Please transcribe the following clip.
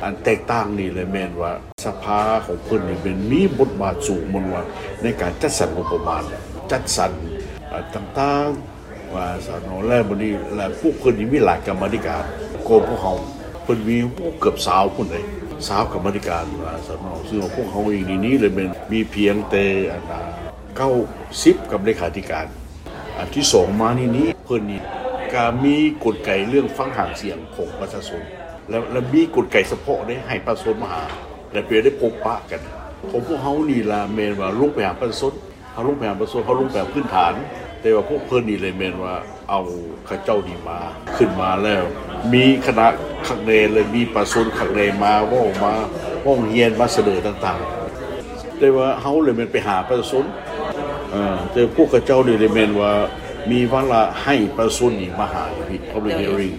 ອັນແຕກຕ່າງນີ້ແຫຼະແມ່ນວ່າສະພາຂອງເພິ່ນນີ້ແມ່ນມີບົດບາດສູງ ແມ່ນວ່າໃນການຈັດສັນງົບປະມານ ຈັດສັນ ເອີ ຕ່າງໆ ວ່າຊັ້ນເນາະ ແລ້ວບັດນີ້ ແລ້ວພວກເພິ່ນນີ້ມີຫຼາຍກຳມາທິການກວ່າພວກເຮົາ ເພິ່ນມີ ໂອ້ ເກືອບຊາວພຸ້ນເດ້ ຊາວກຳມາທິການ ວ່າຊັ້ນເນາະ ຊຶ່ງວ່າພວກເຮົາເອງນີ້ ນີ້ແຫຼະແມ່ນມີພຽງແຕ່ອັນ ເກົ້າສິບ ກຳມາທິການ ອັນທີສອງມານີ້ນີ້ ເພິ່ນນີ້ກະມີກົນໄກເລື່ອງຟັງຫາງສຽງຂອງປະຊາຊົນ ແລະ ແລະມີກົນໄກສະເພາະເດ້ ໃຫ້ປະຊາຊົນມາຫາ ແລະໄປໄດ້ພົບປະກັນ ຂອງພວກເຮົານີ້ລະແມ່ນວ່າລົງໄປຫາປະຊາຊົນ ເຮົາລົງໄປຫາປະຊາຊົນ ເຮົາລົງໄປພື້ນຖານ ແຕ່ວ່າພວກເພິ່ນນີ້ແຫຼະແມ່ນວ່າເອົາເຂົາເຈົ້ານີ້ມາ ຂຶ້ນມາແລ້ວ ມີຄະນະຄັກແນ່ ແລະມີປະຊາຊົນຄັກແນ່ ມາເວົ້າ ມາຮ້ອງຮຽນ ມາສະເໜີຕ່າງໆ ແຕ່ວ່າເຮົາແຫຼະແມ່ນໄປຫາປະຊາຊົນ ເອີ ແຕ່ພວກເຂົາເຈົ້ານີ້ແຫຼະແມ່ນວ່າມີວາລະໃຫ້ປະຊາຊົນນີ້ມາຫາຢູ່ພີ້ Public Hearing